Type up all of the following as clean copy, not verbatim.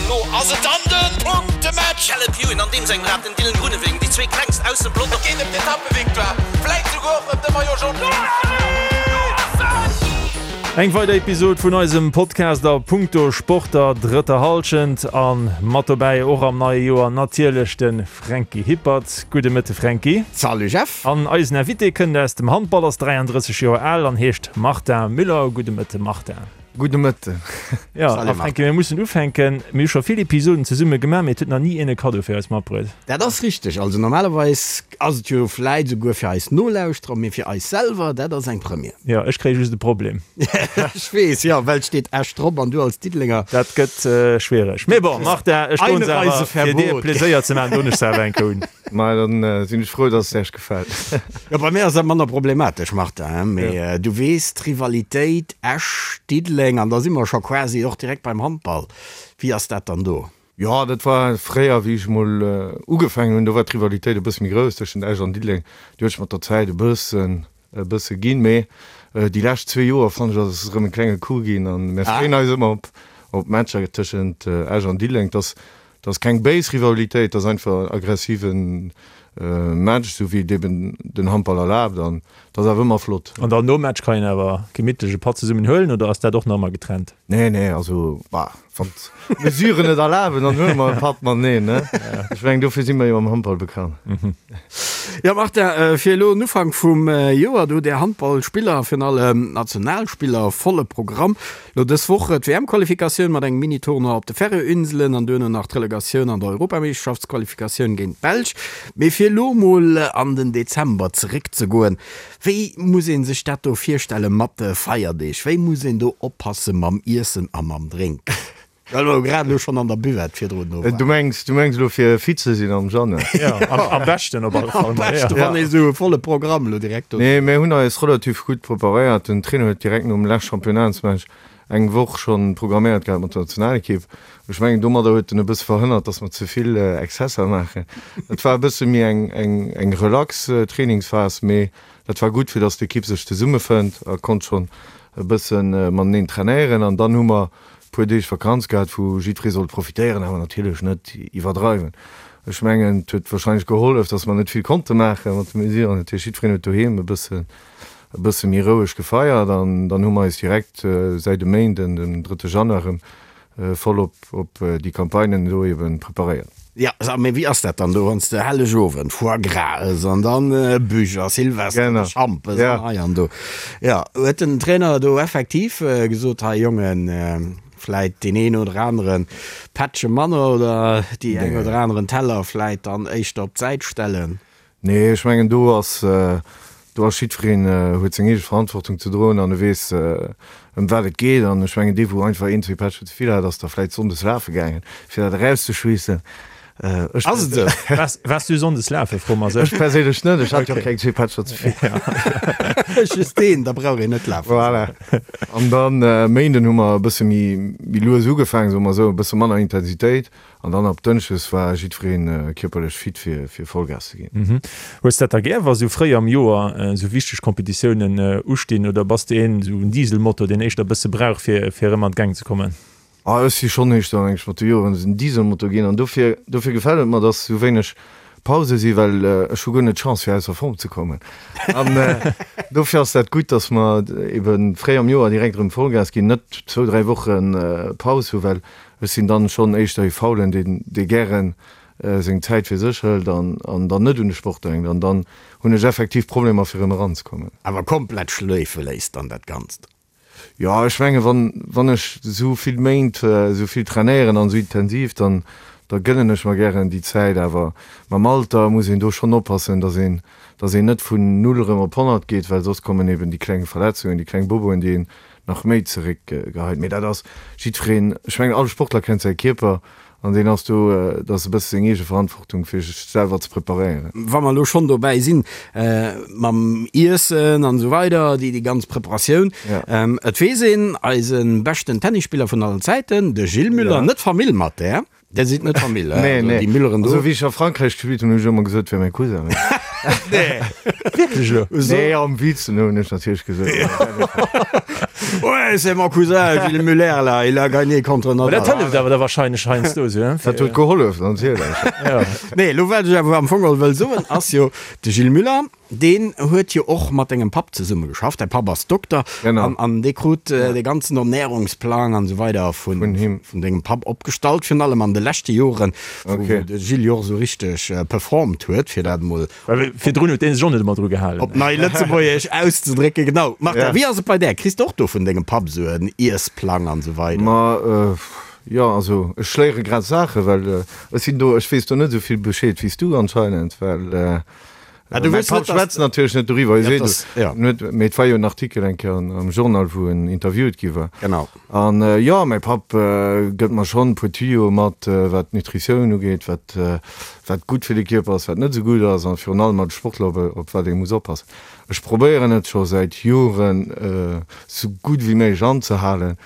An lo ass et dann de Punktematch! Caleb Ewan an deem sengem Rad, den Dylan Groenewegen, déi zwee klengst aus dem Pelotong. Et geet ëm d'Etappevictoire, vläit souguer och ëm de Maillot Jaune. Eng weider Episod vun eisem Podcast a Punkto Sport der drëtter Hallschent an mat dobäi och am neie Joer natierlech de Franky Hippert. Gudde Mëtte Franky. Salut Jeff. An eisen Invité kënnt aus dem Handball, ass 33 Joer al an heescht Martin Müller. Gudde Mëtte Martin. Gudde Mëtten. Jo, a Fränki, mir mussen ufänken. Mir hu scho vill Episoden zesumme gemaach, mee et huet nach ni een e Kaddo fir eis matbruet. Dat ass richteg. Also normalerweis ass et jo vläit esouguer fir eis Nolauschterer, mee fir eis selwer, dat ass eng Première. Jo, ech kréie just e Problem. Ech weess, jo, well et steet Esch drop an du als Diddelenger. Dat gëtt schwiereg. Mee bon, Martin, ech doen se awer, fir dir Pleséier ze maachen, doen ech se awer eng Kéier un. Maja, dann sinn ech frou, dass et Äech gefält. Jo, bei mir ass dat manner problematesch, Martin, mee du weess, d'Rivalitéit Esch, Diddeleng, an da si mer scho quasi och direkt beim Handball. Wéi ass dat dann do? Jo, dat war fréier, wéi ech emol ugefaangen hunn, do war d'Rivalitéit e bësse méi grouss tëschent Esch an Diddeleng. Déi huet sech mat der Zäit e bëssen e bësse ginn, mee déi lescht zwee Joer fannen ech ass et erëm e klenge Coup ginn an mir freeën eis ëmmer op op d'Matcher tëschent Esch an Diddeleng. Et ass et ass keng béis Rivalitéit, et ass einfach en aggressive Match, esou wéi et eben den Handball erlaabt an et ass awer ëmmer flott. An dann nom Match kann een awer gemittlech e Patt zesummen huelen oder ass dat och nach ëmmer getrennt? Nee, nee, also bah, wann d'Mesuren et erlaben, dann huele mer e Patt mateneen, ne? Ech mengen, dofir si mer jo am Handball bekannt. Jo, Martin, fir elo en Ufank vum Joer, do hutt Är Handballspiller, virun allem d'Nationalspiller, volle Programm. Elo dës Woch d'WM-Qualifikatioun mat engem Mini-Tournoi op de Färöerinselen an duerno nach d'Relegatioun an der Europameeschterschaftsqualifikatioun géint d'Belsch. Mee fir elo mol an den Dezember zeréckzegoen, Wéi muss een sech dat do virstelle mat de Feierdeeg? Wéi muss een do oppasse mam Iessen a mam Drénken? Well mer jo grad elo schonn an der Buvette virdrun do waren. Du mengs, du mengs elo fir fit ze sinn am Januar? Jo, am beschten op alle Fall. Am beschten, wann ee sou e volle Programm elo direkt do. Nee, mir hunn eis relativ gutt preparéiert. Den Trainer huet direkt nom lescht Championnatsmatch eng Woch schonn programméiert gehat mat der Nationalekipp. Ech mengen, domadder huet en e bësse verhënnert, datt mer ze vill Exzesser maachen. Et war e bësse méi eng, eng, eng relax Trainingsphas, mee dat war gutt, fir datt d'Ekipp sech zesummefënnt a konnt schonn e bësse mateneen trainéieren. An dann hu mer e puer Deeg Vakanz gehat, wou jiddweree sollt profitéieren, awer natierlech net iwwerdreiwen. Ech mengen, et huet warscheinlech gehollef, datt mer net vill konnte maache mat de Mesuren. Dat heescht, jiddwereen huet doheem e bësse e bësse méi roueg gefeiert an dann hu mer eis direkt säit e Méinden, den drëtte Januar erëm voll op op déi Campagnen elo eben preparéiert. Jo, mee wéi ass dat dann do, wann s de Hellegowend Foie Gras ëss an dann Bûche a Silvester de Schampes an hei an do. Jo, huet den Trainer do effektiv gesot, hei Jongen, vläit deen een oder anere Pättche manner oder déi eng oder aneren Teller vläit dann éischter op d'Säit stellen? Nee, ech mengen do ass, do ass jiddwereen huet seng eege Verantwortung ze droen an e weess ëm wat et geet. An ech mengen dee wou einfach een, zwee Pättchen ze vill hat, ass da vläit sonndes lafe gaangen, fir dat erauszeschweessen. Ech Ass et esou? Waars, waars du sonndes lafen, froe mer sech. Ech perséinlech net, ech hat jo och keng zwee Pättcher ze vill. Just een, da brauch een net lafen. Voilà. An dann Méinden hu mer e bësse méi, méi lues ugefaangen, soe mer esou, e bësse manner Intensitéit. An dann ab Dënschdes war jiddwereen kierperlech fit fir fir Vollgas ze ginn. Hues dat da gär wa sou fréi am Joer sou wichteg Competitiounen ustinn oder bass de een sou en Dieselmotor deen éischter bësse brauch fir fir erëm an d'Gäng ze kommen? Ah ech si schonn éischter meng ech mat de Joeren en Dieselmotor ginn an dofir dofir gefält et mer dass sou wéineg Pause si well ech hu guer net d'Chance fir ausser Form ze kommen an dofir ass dat gutt dass mer eben fréi am Joer direkt erëm Vollgas ginn net zwou 3 Woche Paus hu well Ech sinn dann schonn éischter ee Faulen, deen dee gären seng Zäit fir sech hëlt an an dann net un de Sport denkt. An dann hunn ech effektiv Problemer fir erëm eranzekommen. Awer komplett schléife léisst dann dat Ganzt? Jo, ech menge wann wann ech esou vill Méint esou vill trainéieren an esou intensiv, dann da gënnen ech mer gären déi Zäit. Awer mam Alter muss een do schonn oppassen, dass een dass een net vun null erëm op 100 geet, well soss kommen eben déi kleng Verletzungen, déi kleng Boboen, déi een nach méi zeréck geheit. Mee dat ass jiddwereen, ech mengen all Sportler kennt säi Kierper an deen ass do, dat ass e bësse seng eege Verantwortung fir sech selwer ze preparéieren. Wa mer elo schonn dobäi sinn mam Iessen an esou weider, déi ganz Preparatioun, et weess een, eise beschten Tennisspiller vun allen Zäiten, de Gilles Müller, net Famill mat där, Dir sidd net Famill, he? Nee, nee. Déi Mülleren do. Also wéi ech a Frankräich gespillt hunn, hunn ech ëmmer gesot, et wär mäi Cousin. Nee. Wierklech elo? Nee, am Witz hunn ech natierlech gesot. Ouais, c'est mon cousin Gilles Muller là, il a gagné contre Nadal. Dat hëlleft awer da wahrscheinlech heiansdo esou, hein? Dat huet gehollef, natierlech. Ja. Nee, elo wat ech awer am Fong geholl wëll soen, ass jo, de Gilles Muller, deen huet jo och mat dengem Papp zesumme geschafft. Däi Papp ass Dokter Genau. an, an dee krut dee ganzen Ernährungsplang an esou weider vun, Vun him. vun dengem Papp opgestallt, virun allem an de leschte Joren, wou, Okay. wou de Gilles jo och esou richteg performt huet, fir dat emol Well virdrun huet deen sech och net ëmmer dru gehalen. Op nei Lëtzebuergesch auszedrécken, genau. Martha, Ja. wéi ass et bei där? Kriss de och do vun dengem Papp esou en Iessplang an esou weider? Ma jo, also ech léiere grad Saachen, well ech sinn do, ech weess do net esou vill Bescheed wéi s du anscheinend, well Ah, du mäi wëlls Papp net, dass schwätzt natierlech net doriwwer, hie Ja, seet dass, ja. net, mee et war jo en Artikel eng Kéier am Journal, wou en interviewt gi war. Genau. An jo, mäi Papp gëtt mer schonn e puer Tuyauxe mat, wat d'Nutritioun ugeet, wat wat gutt fir de Kierper ass, wat net esou gutt ass, a virun allem als Sportler op op wat ee muss oppassen. Ech probéieren et scho säit Joren esou gutt wéi méiglech anzehalen,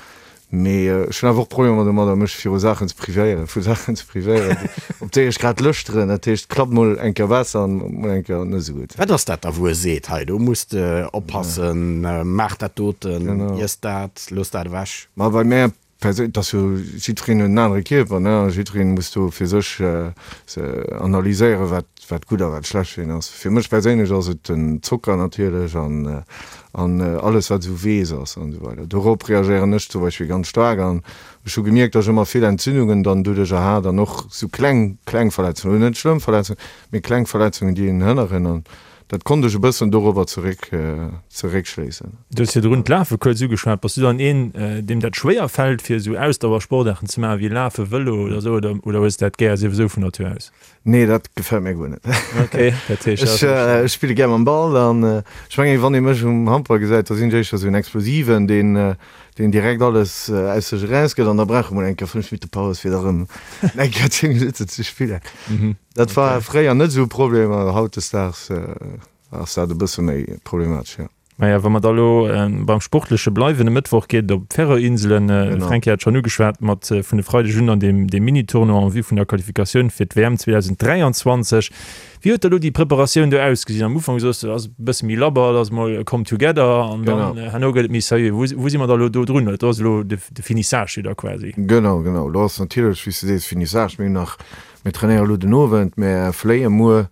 mee ech hunn awer och Problemer domadder, mech viru Saachen ze privéieren, vu Saachen ze privéieren, op déi ech grad Lëscht hunn. Dat heescht, et klappt mol eng Kéier besser an mol eng Kéier net esou gutt. Wat ass dat da, wou e seet, hei do muss de oppassen, maach dat doten, iess dat, looss dat ewech? Ma bei mär perséinlech, et ass jo, jiddwereen huet en anere Kierper, ne, a jiddwereen muss do fir sech analyséieren, wat wat gutt a wat schlecht fir een ass. Fir mech perséinlech ass et den Zocker natierlech an an alles wat esou weess ass an esou weider. Dorop reagéieren ech zum Beispill ganz staark an ech hu gemierkt, datt ech ëmmer vill Entzündungen dann doduercher hat an och esou kleng kleng Verletzungen, net schlëmm Verletzungen, mee kleng Verletzungen, déi een hënneren an dat konnt ech e bëssen dorobber zeréck zeréckschléissen. Du hues virdrun d'Lafe kuerz ugeschwat. Bass du dann een, deem dat schwéier fält, fir esou Ausdauersportaarten ze maachen, wéi Lafen, Vëlo oder esou, oder oder hues de dat gär souwisou vun Natur aus? Nee, dat gefält mir guer net. Okay, dat heescht, Ech ech spille gär mam Ball an ech mengen, wann ee mech um Handball gesäit, da sinn ech éischter esou en Explosiven, deen deen direkt alles aus sech erausgëtt an da brauch e mol eng Kéier 5 Minutte Paus, fir da rëm eng Kéier 10 Minutten ze spillen. Dat war fréier net esou e Problem, awer hautdesdaags ass dat e bësse méi problematesch, jo. Maja, wa mer da lo beim Sportleche bleiwen, e Mëttwoch geet et op d'Färöer-Inselen. De Fränki hat schonn ugeschwat, mat vun e Freideg un an deem Mini-Tournoi en vue vun der Qualifikatioun fir d'WM 2023. Wéi huet da lo déi Preparatioun do ausgesinn? Am Ufank soos de, ass e bësse méi labber, et ass mol come together an dann herno gëtt et méi seriö. Wou wou si mer da lo do drun? Do ass elo de Finissage jo da quasi. Genau, genau. Elo ass natierlech, wéi s de sees, Finissage. Mir hunn nach, mir trainéiere elo den Owend, mir fléie muer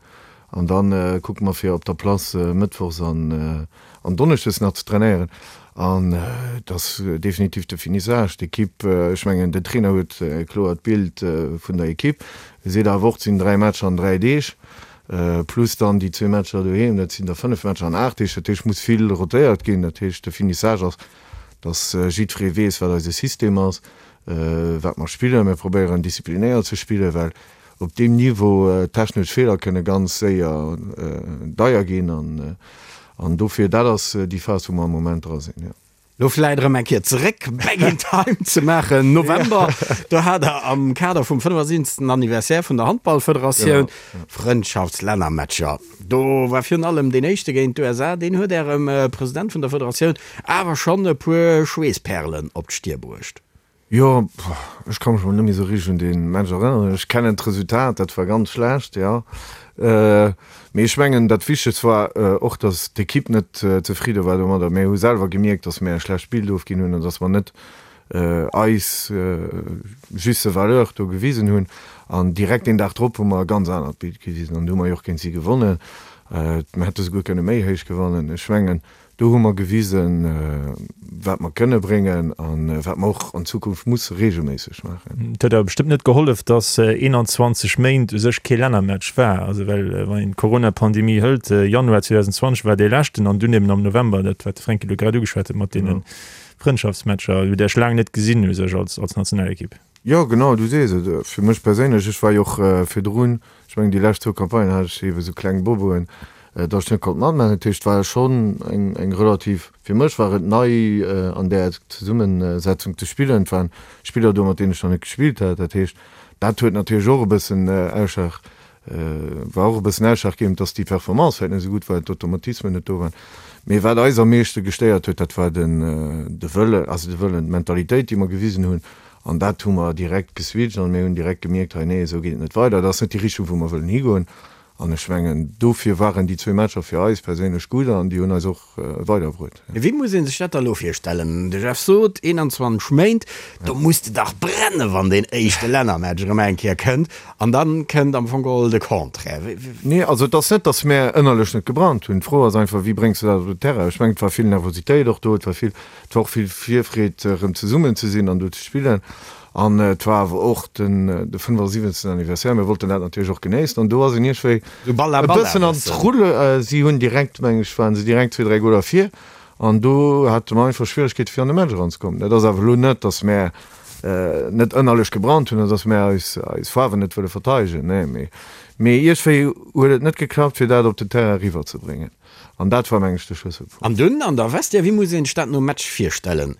An dann kucke mer fir op der Place mëttwochs an an donneschdes nach ze trainéieren. An et ass definitiv de Finissage. D'Ekipp, ech mengen den Trainer huet e kloert Bild vun der Ekipp. E seet awer och, et sinn 3 Matcher an 3 Deeg, plus dann déi zwee Matcher doheem, dat sinn da 5 Matcher an 8 Deeg. Dat heescht, muss vill rotéiert ginn. Dat heescht, de Finissage ass, dass jiddweree weess, wat eise System ass, wat mer spillen. Mir probéieren disziplinéiert ze spillen, well Op deem Niveau, technesch Feeler kënne ganz séier deier ginn an dofir, dat ass déi Phas, wou mer am Moment dra sinn, jo. Lo vläit erëm eng Kéier zeréck, back in time ze maachen, November, do hat Der am Kader vum 75. Anniversaire vun der Handballfederatioun Frëndschaftslännermatcher. Do war virun allem deen éischte géint d'USA, deen huet Ärem President vun der Federatioun awer schonn e puer Schweesspärelen op d'Stier bruecht. Jo, ech ka mech mol net méi esou richteg un dee Match erënneren. Ech kennen d'Resultat, dat war ganz schlecht, jo. Mee ech mengen, dat Wichtegst war och, datt d'Ekipp net zefridde war domadder. Mir hu selwer gemierkt, datt mir e schlecht Bild ofginn hunn an datt mer net eis juste Valeur do gewisen hunn. An direkt deen Dag drop hu mer e ganz anert Bild gewisen an du hu mer jo och géint si gewonnen. Mir hätte souguer kënne méi héich gewannen. Ech mengen, Do hu mer gewisen, wat mer kënne bréngen a wat mer och an Zukunft musse reegelméisseg maachen. Et huet awer bestëmmt net gehollef, dass 21 Méint u sech kee Lännermatch war. Also well wann een d'Corona-Pandemie hëlt, Januar 2020 war dee leschten an dunn eben am November dat, wat de Fränki elo grad ugeschwat huet mat deene Frëndschaftsmatcher, hutt Iech laang net gesinn u sech als Nationalekipp. Jo, genau, du sees et. Fir mech perséinlech, ech war jo och virdrun, ech mengen déi lescht zwou Campagnen hat ech eebe sou kleng Boboen, datt ech net konnt matmaachen. Dat heescht, et war schonn eng, eng relativ, fir mech war et nei an där Zesummesetzung ze spillen. Et waren Spiller do, mat deenen ech nach net gespillt hat. Dat heescht, dat huet natierlech och e bëssen Ausschlag, war och e bëssen ausschlaggebend, datt déi Performance vläicht net esou gutt war, d'Automatismen net do waren. Mee wat eis am meeschte gestéiert huet, dat war den, de Wëlle, also de Wëllen, d'Mentalitéit, déi mer gewisen hunn. An dat hu mer direkt geswitcht an mir hunn direkt gemierkt, hei nee, esou geet et net weider, dat ass net déi Richtung, wou mer wëllen higoen. An ech mengen, dofir waren déi zwee Matcher fir eis perséinlech gutt an déi hunn eis och weiderbruet. Wéi muss ee sech dat da elo virstellen? De Jeff sot, 21 Méint, do muss de dach brennen, wann deen éischte Lännermatch erëm eng Kéier kënnt. An da kënnt am Fong geholl de Contraire. Nee, also et ass net, datt mär ënnerlech net gebrannt hunn. D'Fro ass einfach, wéi bréngs de dat op den Terrain? Ech mengen, et war vill Nervositéit och do, et war vill, et war och vill Virfreed, erëm zesummen ze sinn an do ze spillen. An et war awer och den de 75. Anniversaire, mir wollten dat natierlech och genéissen an do ass een iergendwéi e bëssen an d'Rulle, si hunn direkt, meng ech, waren se direkt zwee, dräi Goler vir an do hate mer einfach Schwieregkeete fir an de Match eranzekommen. Dat ass awer elo net, datt mär net ënnerlech gebrannt hunn oder datt mär eis eis Faarwen net wëlle verteidegen, nee, mee mee iergendwéi huet et net geklappt fir dat op den Terrain eriwwerzebréngen. An dat war, meng ech, de Schlësselpunkt. An dunn an der Vestiaire, wéi muss een sech dat nom Match virstellen?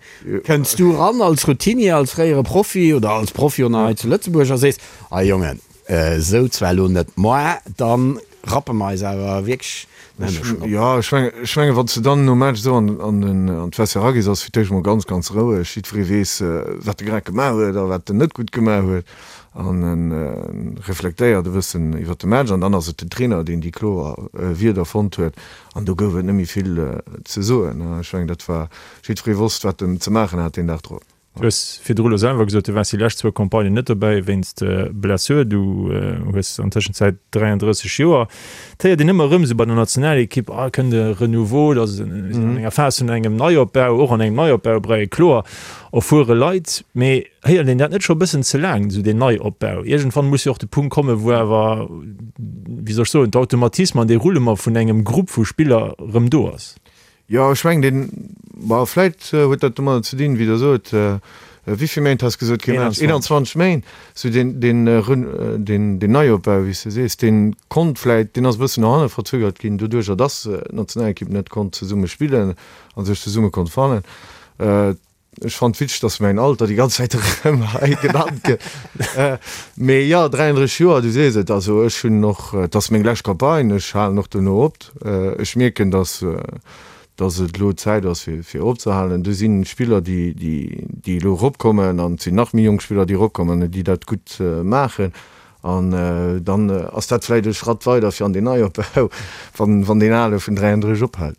Kënns du ran als Routinier, als fréiere Profi oder als Profi och nach hei zu Lëtzebuerg a sees, Ah Jongen, esou zwar elo net, moi da rappe mer eis awer wierklech den Hënneschten op? Jo, ech mengen, ech mengen, wann s de dann nom Match esou an an d'Vestiaire eragees, ass fir d'éischt emol ganz, ganz roueg. Jiddweree weess, wat e grad gemaach huet a wat en net gutt gemaach huet. An en reflektéiert e bëssen iwwer de Match an dann ass et den Trainer, deen déi kloer Wierder fonnt huet an do gouf et net méi vill ze soen. Ech mengen, dat war, jiddweree wosst, wat en ze maachen hat deen Dag drop. Du hues virdru elo selwer gesot, du waars déi lescht zwou Campagnen net dobäi wéinst Blessure. Du hues an Tëschenzäit 33 Joer. Et héiert een ëmmer erëm esou bei der Nationalekipp, ah, kënnt e Renouveau, da si an enger Phas vun engem Neiopbau, och an engem Neiopbau, brei kloer erfuere Leit. Mee Héiert een dat net scho e bëssen ze laang, esou deen Neiopbau? Iergendwann muss jo och de Punkt kommen, wou awer, wéi soll ech soen, d'Automatismen an dee Roulement vun engem Grupp vu Spiller erëm do ass. Jo, ech mengen deen, bon, vläit huet dat domadder ze dinn, wéi Der sot, wéi vill Méint has de gesot, kee Match? 21 Méint. Esou deen, deen, deen, deen Neiopbau, wéi s de sees, dee konnt vläit, deen ass e bëssen no hanne verzögert ginn, doduerjer dass d'Nationalekipp net konnt zesumme spillen a sech zesumme konnt fannen. Ech fannt witzeg, dass mäin Alter déi ganz Zäit erëm hei genannt gëtt. Mee jo, 33 Joer, du sees et. Also ech hunn och, et ass meng lescht Campagne, ech halen och dono op. Ech mierken, dass, dass et elo Zäit ass fir, fir opzehalen. Do si Spiller, déi, déi, déi elo eropkommen an et sinn nach méi jonk Spiller, déi eropkommen an déi dat gutt maachen. An dann ass dat vläicht e Schratt weider fir an deen Neiopbau, wann, wann deen ale vun 33 ophält.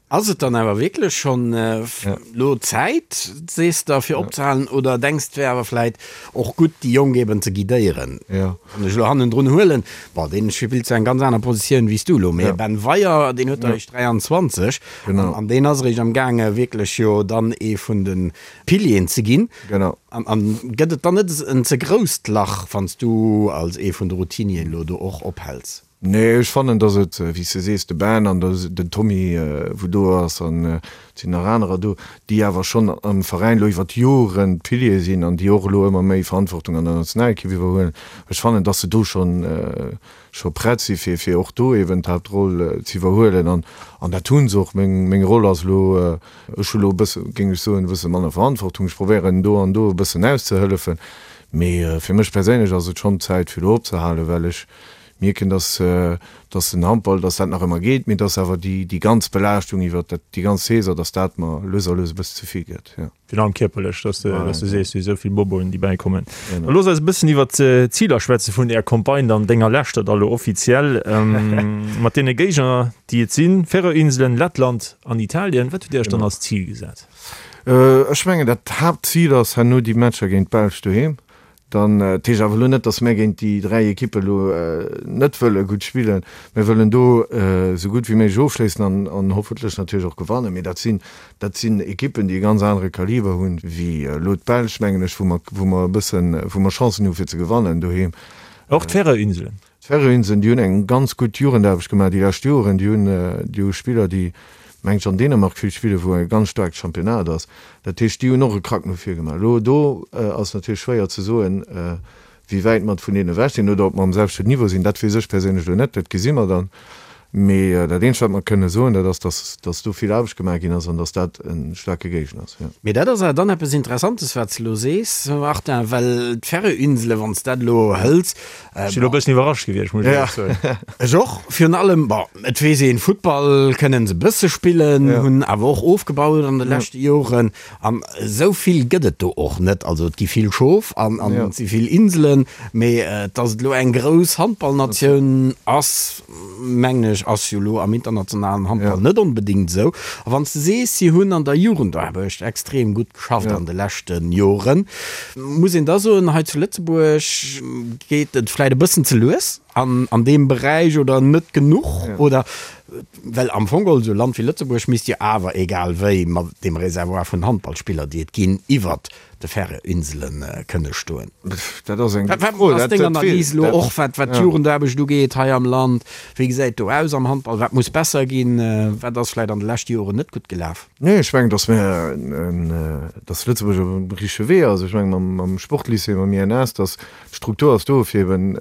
Ass et dann awer wierklech schonn elo Zäit, sees de, fir opzehalen oder denks d'wär awer vläit och gutt, déi Jonk eben ze guidéieren? Wann ech elo hannendrun huelen, bon, deen spillt zwar eng ganz aner Positioun wéi s du elo, mee Ben Weyer, deen huet der eréischt 23 an deen ass eréischt am gaange wierklech jo dann ee vun de Pilieren ze ginn. An gëtt et dann net en ze grousst Lach, wann s du als ee vun de Routinieren elo do och ophäls? Nee, ech fannen, dass et, wéi s de sees, de Ben an den Tommy, wou do ass, an et sinn nach anerer do, déi awer schonn am Veräin elo iwwer d'Joren d'Piliere sinn an déi och elo ëmmer méi Verantwortung an der Nationalekipp iwwerhuelen. Ech fannen, dass se do schonn, scho prett si fir, fir och do eben d'Haaptroll ze iwwerhuelen an, an dat hu se och. Meng, meng Roll ass elo, ech hu elo e bësse, géing ech soen, e bësse manner Verantwortung. Ech probéieren do an do e bëssen auszehëllefen, mee fir mech perséinlech ass et schonn Zäit fir elo opzehalen, well ech mierken, dass, dass den Handball, dass dat nach ëmmer geet, mee dass awer déi, déi ganz Belaaschtung iwwer dat, déi ganz Saison, dass dat mer lues a lues e bëssen ze vill gëtt, jo. Virun allem kierperlech, dass de, dass de sees, wéi esou vill Boboen, déi bäikommen. Da looss eis e bëssen iwwer d'Ziler schwätze vun där Campagne dann, denger leschter da lo offiziell, mat deene Géigner, déi et sinn, Färöer-Inselen, Lettland an Italien. Wat hutt Dir Iech dann als Zil gesat? Ech mengen, dat Haaptzil ass herno déi Matcher géint d'Belsch doheem. Dann, dat heescht awer elo net, datt mär géint déi 3 Ekippe elo net wëlle gutt spillen. Mär wëllen do esou gutt wéi méiglech ofschléissen an, an hoffentlech natierlech och gewannen. Mee dat sinn, dat sinn Ekippen, déi e ganz anere Kaliber hunn wéi elo d'Belsch, mengen ech, wou mer, wou mer e bëssen, wou mer Chancen hu fir ze gewannen doheem. Och d'Färöer-Inselen. D'Färöinseln, déi hunn eng ganz gutt Jugendaarbecht gemaach déi lescht Joren. Déi hunn, déi hu Spiller, déi, mengen ech, an Dänemark vill spillen, wou e ganz staarkt Championnat ass. Dat heescht, déi hunn och e Krack no vir gemaach. Elo do ass natierlech schwéier ze soen, wéi wäit mer vun deenen ewech sinn oder ob mer um selwechten Niveau sinn. Dat weess ech perséinlech elo net, dat gesi mer dann. Mee dat eenzegt, wat mer kënne soen, dat ass, dass, dass do vill Aarbecht gemaach ginn ass an dass dat e staarke Géigner ass, jo. Mee dat ass awer dann eppes Interessantes, wat s de elo sees, Martin, well d'Färöerinsele, wann s dat elo hëls, Ech sinn elo e bëssen iwwerrascht gewiescht, muss ech éierlech soen. Ech och. Virun allem, bon, et weess een, Futtball kënnen se e bësse spillen, hunn awer och ofgebaut an de leschte Joren. An esou vill gëtt et do och net. Also et gi vill Schof an et si vill Inselen, mee datt et elo eng grouss Handballnatioun ass, mengen ech, ass jo elo am internationalen Handball net onbedéngt esou. A wann s de sees, si hunn an der Jugendaarbecht extrem gutt geschafft an de leschte Joren, muss een da soen, hei zu Lëtzebuerg geet et vläicht e bëssen ze lues an deem Beräich oder net genuch oder Well am Fong geholl, esou e Land wéi Lëtzebuerg misst jo awer egal wéi mat deem Reservoir vun Handballspiller, déi et ginn, iwwert de Färöerinsele kënne stoen. Dat ass eng gutt Fro. Wat ass deng Analys elo och, wat d'Jugendaarbecht ugeet hei am Land? Wéi gesäit do aus am Handball? Wat muss besser ginn? Wat ass vläicht an de leschte Joren net gutt gelaf? Nee, ech mengen, datt mir, datt Lëtzebuerg op dem richtege Wee ass. Ech mengen, mam Sportlycée, mam INS, datt d'Struktur ass do, fir eben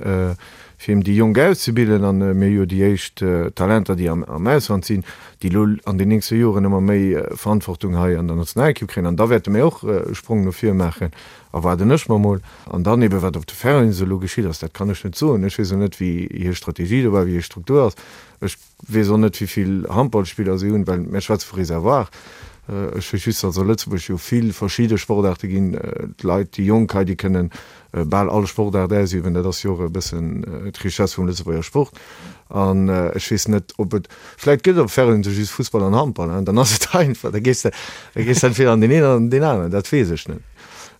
fir eben déi Jonk auszebilden, an mir hu jo déi éischt Talenter, déi am Ausland sinn, déi elo an den nächste Joren ëmmer méi Verantwortung hei an der Nationalekipp kréien, an da wäerte mir och e Sprong no vir maachen, erwaarden ech mer mol. An dann eben, wat op de Färöerinsele elo geschitt ass, dat kann ech net soen. Ech weess och net, wéi hir Strategie do war, wéi hir Struktur ass. Ech weess och net, wéi vill Handballspiller si hunn, well mir schwätze vu Reservoir. Ech weess just, datt a Lëtzebuerg jo vill verschidde Sportaarte ginn. D'Leit, déi Jonk hei, déi kënnen bal all Sportaart ausüben. Dat ass jo och e bëssen d'Richesse vum Lëtzebuerger Sport. An ech weess net, ob et, vläicht gëtt et op Färöer just Fussball an Handball, hein, dann ass et einfach, da gees de, da gees de entweder an deen een oder an deen aneren, dat weess ech net.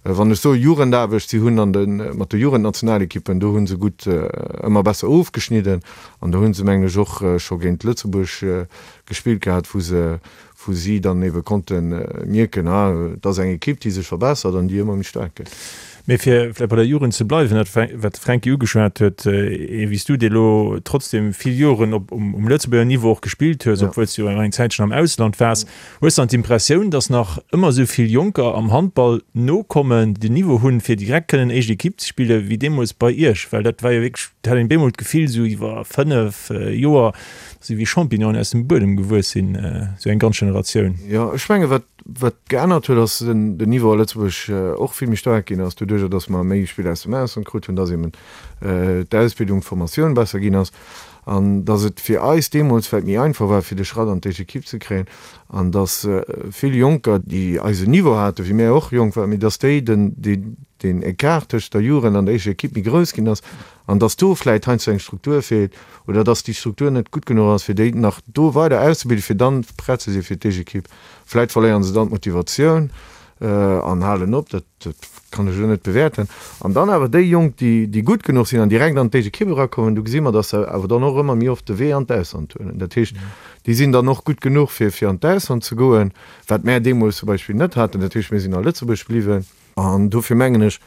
Wann ech soe Jugendaarbecht, si hunn an de, mat de Jugendnationalekippen, do hu se gutt ëmmer besser ofgeschnidden an do hu se, mengen ech, och scho géint Lëtzebuerg gespillt gehat, wou se, wou si dann ebe konnte mierken, ah, et ass eng Ekipp, déi sech verbessert an déi ëmmer méi staark gëtt. Mee fir vläicht bei der Jugend ze bleiwen, dat wat de Fränki ugeschwat huet, ee wéi s du, dee lo trotzdem vill Joren op um Lëtzebuerger Niveau och gespillt hues, obwuel s du jo eng Zäitchen am Ausland waars, hues dann d'Impressioun, datt nach ëmmer esou vill Jonker am Handball nokommen, déi den Niveau hunn, fir direkt kënnen éischt Ekipp ze spillen, wéi deemools bei iech? Well dat war jo wierklech, dat hat een bemol d'Gefill, esou iwwer 5 Joer, Si wéi Champignonen aus dem Buedem gewuess sinn, esou eng ganz Generatioun. Jo, ech menge wat wat geännert huet, ass den den Niveau a Lëtzebuerg och vill méi staark ginn ass, doduerjer datt mer méi Spiller aus dem Ausland krut hunn, datt eben d'Ausbildung, d'Formatioun besser ginn ass an datt et fir eis deemools vläicht méi einfach war, fir de Schratt an d'éischt Ekipp ze kréien an datt vill Jonker, déi eisen Niveau haten, wéi mär och jonk waren, mee datt déi den deen Ecart tëscht der Jugend an der éischter Ekipp méi grouss ginn ass An dass do vläit heiansdo eng Struktur feelt oder dass déi Struktur net gutt genuch ass, fir déi nach do weider auszebilden, fir dann prett ze si fir d'Éischt-Ekipp. Vläit verléieren se dann d'Motivatioun an halen op, dat kann ech elo net bewäerten. An dann awer déi Jonk, déi déi gutt genuch sinn an direkt an d'Éischt-Ekipp erakommen, do gesi mer, dass se awer dann och ëmmer méi oft de Wee an d'Ausland huelen. Dat heescht, déi sinn dann och gutt genuch, fir fir an d'Ausland ze goen, wat mär deemools zum Beispill net haten. Dat heescht, mir sinn a Lëtzebuerg bliwwen. An dofir mengen ech,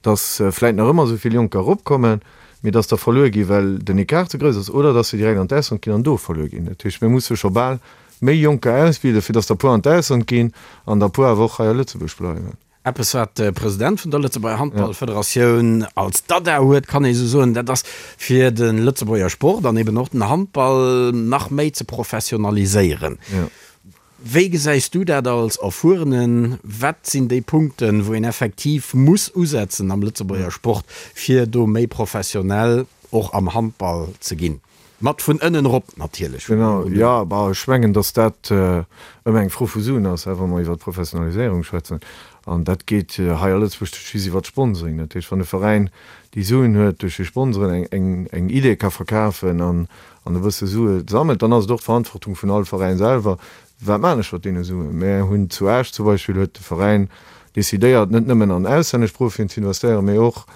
dass vläit nach ëmmer esou vill Jonker eropkommen, mee dass der verluer ginn, well den Ecart ze grouss ass, oder dass se direkt an d'Ausland ginn an do verluer ginn. Dat heescht, mir musse scho bal méi Jonker ausbilden, fir dass der e puer an d'Ausland ginn an der e puer awer och hei a Lëtzebuerg bleiwen. Eppes, wat de President vun der Lëtzebuerger Handballfederatioun als Dada huet, kann ee sou soen, dat ass, fir de Lëtzebuerger Sport an eben och den Handball nach méi ze professionaliséieren. Wéi gesäis du dat als Erfuerenen? Wat sinn déi Punkten, wou een effektiv muss usetzen am Lëtzebuerger Sport, fir do méi professionell och am Handball ze ginn? Mat vun ënnen erop natierlech. Genau, jo. Bah, ech mengen, datt dat ëmmer eng Fro vu Suen ass, wa mer iwwer d'Professionaliséierung schwätzen. An dat geet hei a Lëtzebuerg just iwwer d'Sponsoring. Dat heescht, wann e Veräin déi Suen huet, duerch hir Sponsoren eng Idee ka verkafen an an e bësse Sue sammelt, dann ass et och d'Verantwortung vun all Veräin selwer, Wat maachen ech mat deene Suen? Mär hunn zu Esch zum Beispill, huet de Veräin decidéiert, net nëmmen an auslännesch Profien ze investéieren, mee och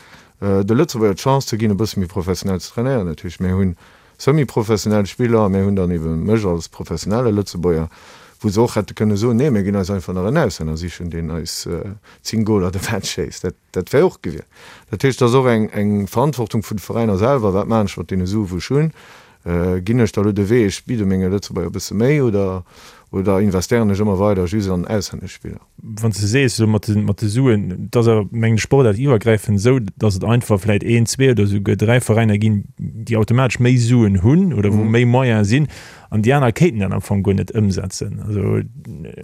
de Lëtzebuerger d'Chance ze ginn, e bësse méi professionell ze trainéieren. Dat heescht, mär hunn semi-professionell Spiller, mär hunn dann ebe mech als professionelle Lëtzebuerger, wou se och hätte kënne soen, nee, mir ginn eis einfach nach en Auslänner sichen, deen eis 10 Goler de Match schéisst. Dat. Dat wär och gewier. Dat heescht, et ass och eng Verantwortung vun de Veräiner selwer, Wat maachen ech mat deene Sue wou ech hunn? Ginn ech da elo de Wee, ech bidde menge Lëtzebuerger e bësse méi oder. Oder investéieren ech ëmmer weider just an auslännesch Spiller? Wann s de sees, esou mat de, mat de Suen, et ass awer, mengen ech, sportaartiwwergräifend esou, datt et einfach vläit een, zwee oder esouguer dräi Veräiner ginn, déi automatesch méi Suen hunn oder wou méi Moyene sinn an déi aner kéinten dat am Fong guer net ëmsetzen. Also.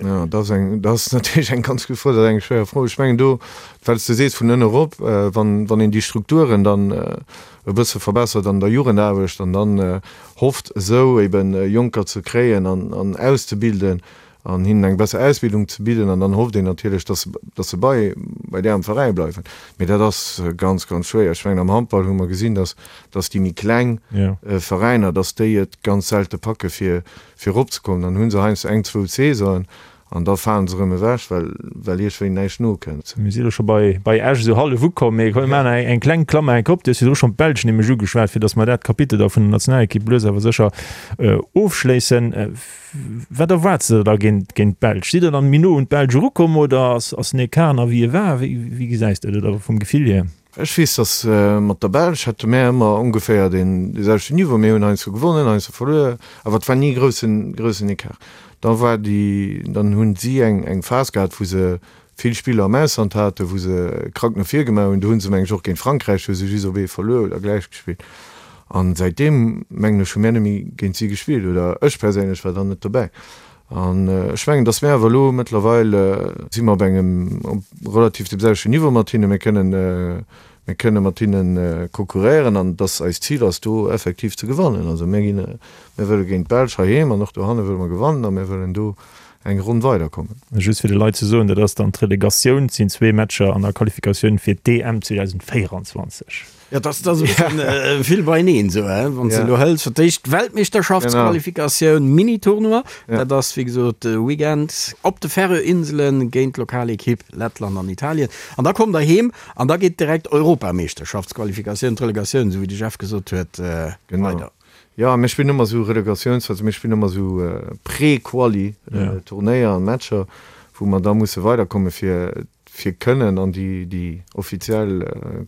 Jo, dat ass eng, dat ass natierlech eng ganz gutt Fro. Dat ass eng schwéier Fro. Ech mengen do, well s de sees vun ënne erop, wann, wann een déi Strukturen dann e bësse verbessert an der Jugendaarbecht an dann hofft esou eben Jonker ze kréien an, an auszebilden an hinnen eng besser Ausbildung ze bidden an dann hofft een natierlech, dass, dass se bei, bei där am Veräi bleiwen. Mee dat ass ganz, ganz schwéier. Ech mengen am Handball hu mer gesinn, dass, dass déi méi kleng Veräiner, dass déi et ganz selte packe fir, fir eropzekommen. Dann hu se heiansdo eng, zwou Saisonen an da falen se erëm ewech, well, well iergendwéi näischt nokënnt. Mir si elo scho bei, bei Esch esou hallef ukomm, mee komm mir maachen eng, eng kleng Klammer enk op. Du hues virdru schonn d'Belsch nämlech ugeschwat, fir dass mer dat Kapitel da vun der Nationalekipp lues awer sécher ofschléissen. Wat erwaarts de der da géint d'Belsch? Sidd der dann méi no un d'Belsch erukomm oder ass den Ecart nach wéi e war? Wéi gesäis de dat oder vum Gefill hier? Ech weess, datt mat der Belsch hätte mär ëmmer ongeféier dee selwechten Niveau. Mir hunn heiansdo gewonnen, heiansdo verluer, awer et war ni e groussen, groussen Ecart. Da war déi, dann hunn si eng, eng Phas gehat, wou se vill Spiller am Ausland haten, wou se krank no vir gemaach hunn. Do hu se, meng ech, och géint Frankräich hu se just op ee verluer oder gläich gespillt. An säitdeem, mengen ech, hu mär net méi géint si gespillt, oder ech perséinlech war dann net dobäi. An ech mengen, datt mär awer elo mëttlerweil si mer op engem, op relativ deem selwechten Niveau mat hinnen. Mir kënnen, mir kënne mat hinne konkurréieren an datt eist Zil ass, do effektiv ze gewannen. Also mir ginn, mir wëlle géint d'Belsch heiheem an och dohanne wëlle mer gewannen a mir wëllen do eng Ronn weiderkommen. Just fir de Leit ze soen, dat ass dann d'Relegatioun, et sinn zwee Matcher an der Qualifikatioun fir d'EM 2024. Jo, dat ass e bëssen vill beieneen esou, hein, wann s de elo hëls fir d'éischt d'Weltmeeschterschaftsqualifikatioun, Mini-Tournoi, dat ass wéi gesot de Weekend op de Färöer-Inselen géint d'Lokalekipp Lettland an Italien. An da kommt der heem an da geet direkt Europameeschterschaftsqualifikatioun, d'Relegatioun, esou wéi de Jeff gesot huet, weider. Jo, mir spillen ëmmer esou Relegatiouns, also mir spillen ëmmer esou Pré-Quali Turnéier an Matcher, wou mer da musse weiderkomme fir fir kënnen an déi déi offiziell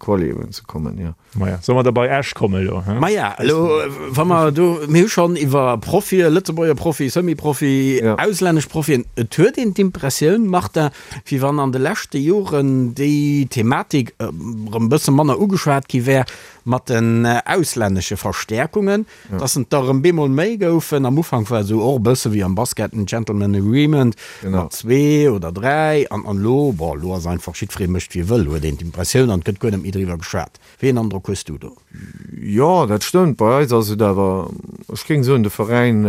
Quali eben ze kommen, jo. Maja, solle mer da bei Esch kommen elo, he? Maja, elo wa mer do, mir hu schonn iwwer Profie, Lëtzebuerger Profi, Semi-Profi, auslännesch Profien, et huet een d'Impressioun, Martin, wéi wann an de leschte Joren déi Thematik erëm e bësse manner ugeschwat gi wär, Mat den auslännesche Verstäerkungen, dass en der erëm bemol méi goufen. Am Ufank war et esou och e bësse wéi am Basket en Gentleman Agreement mat zwee oder dräi. An elo, bon, elo ass einfach jiddweree mécht wéi e wëll, huet een d'Impressioun, an et gëtt guer net méi driwwer geschwat. Wéi een Androck hues du do? Jo, dat stëmmt. Bei eis ass et awer, ech géing soen, de Veräin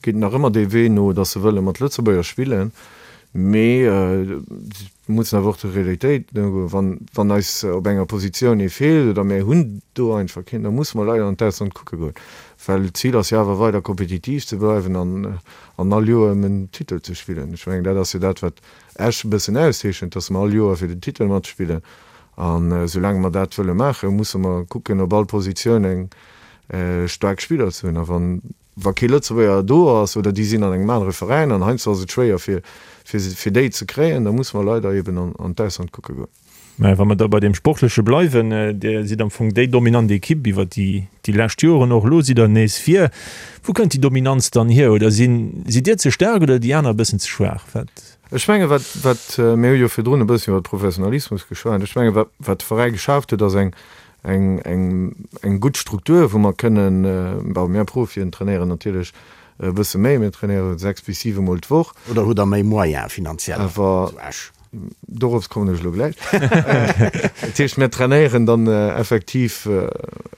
geet nach ëmmer dee Wee no, dass se wëlle mat Lëtzebuerger spillen, mee Mir mussen awer och der Realitéit nogoen. Wann, wann eis op enger Positioun ee feelt oder mir hunn do einfach keen, da musse mer leider an d'Ausland kucke goen. Well d'Zil ass jo awer weider kompetitiv ze bleiwen an, an all Joer ëm en Titel ze spillen. Ech mengen, dat ass jo dat, wat Esch e bëssen auszeechent, dass mer all Joer fir den Titel matspillen. An esoulaang mer dat wëlle maachen, musse mer kucken, op all Positioun eng staark Spiller ze hunn. A wann Wa kee Lëtzebuerger do ass oder déi sinn an engem anere Veräin an heiansdo ass et schwéier fir fir déi ze kréien, da musse mer leider eben an d'Ausland kucke goen. Mä wa mer da bei deem Sportleche bleiwen, Dir sidd am Fong déi dominant Ekipp iwwer déi déi lescht Joren, och elo sidd Der nees vir. Wou kënnt déi Dominanz dann hier? Oder sinn sidd Dir ze staark oder déi aner e bëssen ze schwaach? Wat? Ech menge wat wat, mir hu jo virdrun e bëssen iwwer Professionalismus geschwat, ech menge wat wat de Veräi geschaaft huet ass eng eng, eng, eng gutt Struktur, wou mer kënnen, bon, mir Profien trainéieren natierlech e bësse méi, mir trainéiere 6 bis 7 Mol d'Woch. Oder hutt Der méi Moyens finanziell Awer zu Esch? dorops kommen ech elo gläich. Dat heescht, mir trainéieren dann effektiv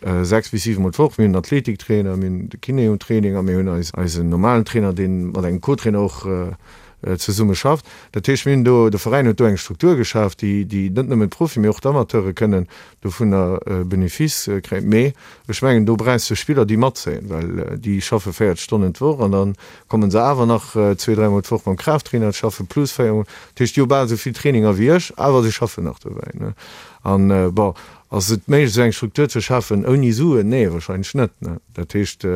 6 bis 7 Mol d'Woch. Mir hunn en Athletiktrainer, mir hunn de Kiné um Training a mir hunn eis, eisen normalen Trainer, dee mat engem Co-Trainer och zesumme schafft. Dat heescht, mir hunn do, de Veräin huet do eng Struktur geschaf, déi, déi net nëmmen d'Profien, mee och d'Amateure kënnen dovunner Benefice kréien. Mee ech mengen, do brauchs de Spiller, déi matzéien, well déi schaffe 40 Stonnen d'Woch an da komme se awer nach zwee, dräimol d'Woch mam Kraafttrainer schaffen, plus véiermol. Dat heescht, déi hu bal esou vill Traininger wéi ech, awer se schaffen nach dobäi. An, bon, ass et méiglech, esou eng Struktur ze schafen ouni Suen? Nee, wahrscheinlech net. Dat heescht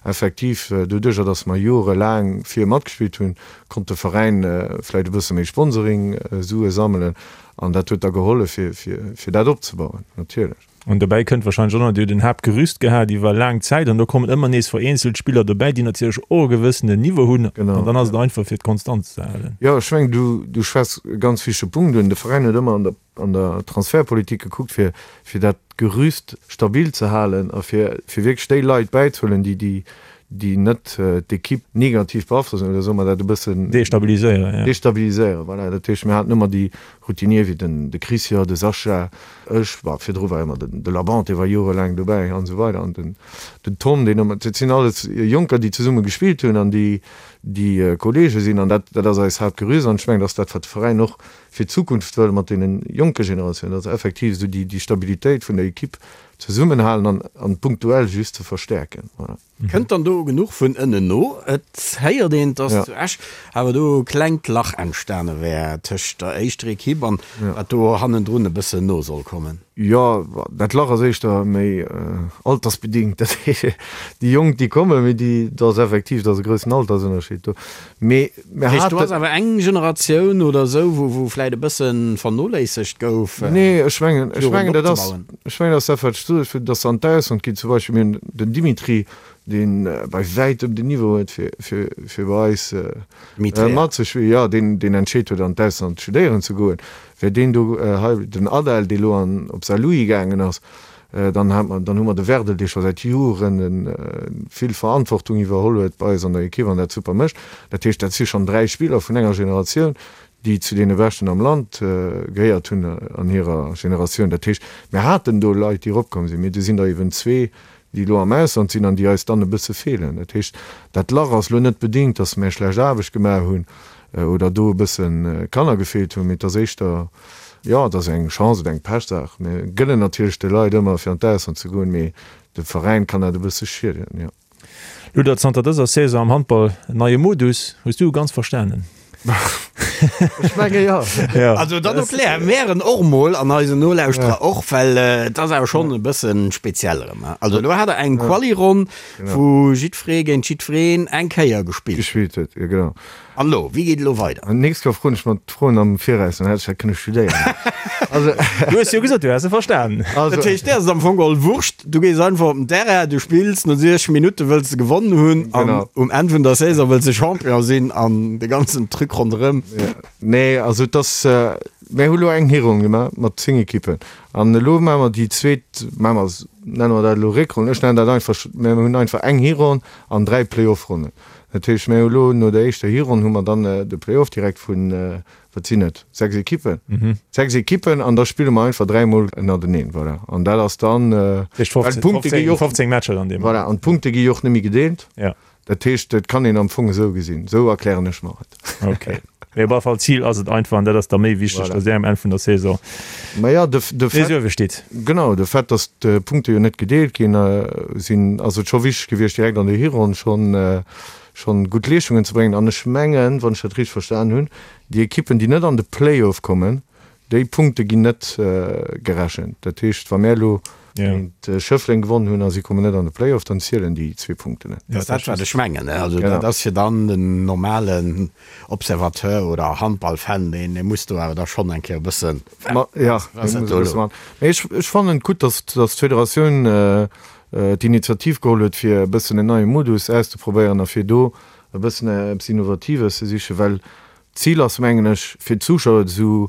effektiv, doduerjer, datt mer jorelaang vir matgespillt hunn, konnt de Veräin vläicht e bësse méi Sponsoring-Sue sammelen. An dat huet da gehollef, fir, fir, fir dat opzebauen, natierlech. An dobäi kënnt wahrscheinlech och nach, Dir hutt en Haaptgerüst gehat iwwer laang Zäit an do kommen ëmmer nees vereenzelt Spiller dobäi, déi natierlech och e gewëssenen Niveau hunn. An dann ass et einfach fir d'Konstanz ze halen. Jo, ech mengen, du, du schwätz e ganz wichtege Punkt un. De Veräin huet ëmmer an der, an der Transfertpolitik gekuckt, fir, fir dat Gerüst stabil ze halen a fir, fir wierklech déi Leit bäizehuelen, déi, déi, déi net d'Ekipp negativ beaflossen oder soe mer dat e bëssen. Destabiliséieren, jo. Destabiliséieren, voilà. Dat heescht, mir haten ëmmer déi Routinier wéi den de Christian, de Sascha, ech, bah, virdru war ëmmer den de Labant, dee war jorelaang dobäi an esou weider an den den Tom, deen ëmmer, dat sinn alles Jonker, déi zesumme gespillt hunn an déi déi Kollege sinn an dat dat ass eis Haaptgerüst an ech mengen, dat ass dat, wat de Veräin och fir d'Zukunft wëll mat deene jonke Generatiounen, dass effektiv esou déi déi Stabilitéit vun der Equipe zesummenhalen an an punktuell just ze verstäerken, voilà. Kënnt dann do genuch vun ënnen no? Et héiert een, dass zu Esch awer do e klengt Lach entstane wär tëscht der éischter Ekipp an wat do hannendrun e bëssen no soll kommen. Jo, dat Lach ass éischter méi altersbedingt. Dat heescht, déi Jonk, déi kommen, mee déi, do ass effektiv, do ass e groussen Altersënnerscheed do. Mee mir haten. Do ass awer eng Generatioun oder esou, wou, wou vläit e bësse vernoléissegt gouf. Nee, ech mengen, ech mengen, dat ass, ech mengen, dat ass dat, wat ech gesot hunn, dass se an d'Ausland ginn. Zum Beispill, mir hunn den Dimitri, dee bei wäitem den Niveau huet, fir, fir, fir bei eis matzespillen, jo, deen, deen entscheet huet, an d'Ausland studéieren ze goen. Wär deen do hei, den Adel, dee elo an, op Saarlouis gaangen ass, Dann hat mer, dann hu mer de Werdel, dee scho säit Joren vill Verantwortung iwwerholl huet bei eis an der Ekipp an dat super mécht. Dat heescht, dat si schonn 3 Spiller vun enger Generatioun, déi zu deene Beschten am Land gehéiert hunn an hirer Generatioun. Dat heescht, mir haten do Leit, déi eropkomm sinn, mee do sinn der eben zwee, déi elo am Ausland sinn an déi eis dann e bësse feelen. Dat heescht, dat Lach ass elo net bedingt, datt mär schlecht Aarbecht gemaach hunn oder do e bësse Kanner gefeelt hunn, mee et ass éischter, Jo, et ass eng Chance oder eng Pechsaach. Mir gënnen natierlech de Leit ëmmer fir an d'Ausland ze goen, mee dem Veräin kann dat e bësse schieden, jo. Luder, zanter dëser Saison am Handball en neie Modus. Hues du e ganz verstanen? Ech menge jo. Also dann erklär mär en och mol an eisen Nolauschterer och, well et ass awer schonn e bësse speziell erëm. Also elo hat der eng Quali-Ronn, wou jiddweree géint jiddwereen eng Kéier gespillt. Gespillt huet, jo genau. An elo, wéi geet elo weider? An d'nächst Kéier froen ech mer d'Froen am Viraus, dann hätt ech dat kënne studéieren. Also. Du hues jo gesot, du häss se verstanen. Also. Dat heescht, dir ass et am Fong geholl Wurscht, du gees einfach op den Terrain, du spills, no 60 Minutte wëlls de gewonnen hunn an um Enn vun der Saison wëlls de Champion sinn an de ganzen Truc ronderëm. Nee, also et ass, mir hu lo eng Hironn gemaach mat 10 Ekippen an elo maache mer déi zweet, maache mer, nenne mer dat elo Réckronn, ech nennen dat einfach, mir hunn einfach eng Hironn an 3 Playoff-Ronnen. Dat heescht, mir hu elo no der éischter Hironn hu mer dann de Play-off direkt vun, wat sinn et, 6 Ekippen? 6 Ekippen an da spille mer einfach dräimol ënnerteneen, voilà. An dat ass dann, well d'Punkte gi jo och, 15 Matcher dann deemno. Voilà, an d'Punkte gi jo och net méi gedeelt. Ja. Dat heescht, et kann een am Fong esou gesinn, esou erklären ech mer et. Okay. Mee op alle Fall, d'Zil ass et einfach, an dat ass da méi wichteg, Voilà. datt Dir um Enn vun der Saison Ma ja, de, de nees Fait, uewe steet. genau, de Fait, datt d'Punkte jo net gedeelt ginn sinn, ass et scho wichteg gewiescht, direkt an der Hironn schonn, schonn gutt Leeschtungen ze bréngen. An ech mengen, wann ech dat richteg verstan hunn, déi Ekippen, déi net an de Play-off kommen, Déi Punkte ginn net gerechent. Dat heescht, wa mär elo géint Schëffleng gewonnen hunn a si kommen net an de Play-off, dann zielen déi zwee Punkten net. Dat ass dat, wat ech mengen. Also dat ass fir dann den normalen Observateur oder Handballfan, deen muss do awer da schonn eng Kéier e bëssen. Jo, dee muss e bësse mat. Mee ech fannen et gutt, datt d'Federatioun d'Initiativ geholl huet, fir e bëssen en neie Modus auszeprobéieren a fir do e bëssen eppes Innovatives ze sichen, well D'Zil ass, mengen ech, fir d'Zuschauer esou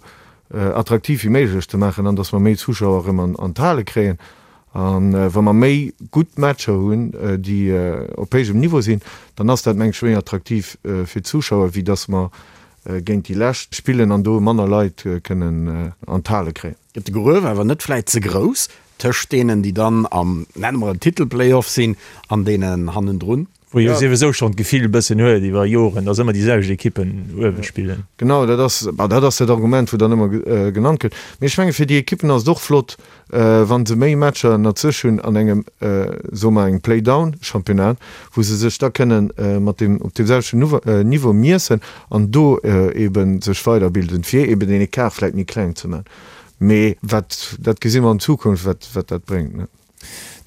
attraktiv wéi méiglech ze maachen an dass mer méi Zuschauer erëm an d'Hale kréien. A wa mer méi gutt Matcher hunn, déi op héijem Niveau sinn, dann ass dat, mengen ech, méi attraktiv fir d'Zuschauer, wéi dass mer géint déi Lescht spillen an do manner Leit kënnen an d'Hale kréien. Gëtt de Gruef awer net vläit ze grouss tëscht deenen, déi dann am, nenne mer et, Titel-Playoff sinn an deenen hannendrun? Wou ee jo souwisou schonn d'Gefill e bëssen huet iwwer Joren, dass ëmmer déi selwecht Ekippen uewe spillen. Genau, dat ass, bah, dat ass dat Argument, wou dann ëmmer genannt gëtt. Mee ech menge fir déi Ekippen ass et och flott, wa se méi Matcher ënnert sech hunn an engem, soe mer, engem Play-down-Championnat, wou se sech da kënnen mat deem, op deem selwechten Niveau miessen an do eebe sech weiderbilden, fir eeben deen Ecart vläicht méi kleng ze maachen. Mee wat, dat gesi mer an Zukunft, wat, wat dat bréngt, ne.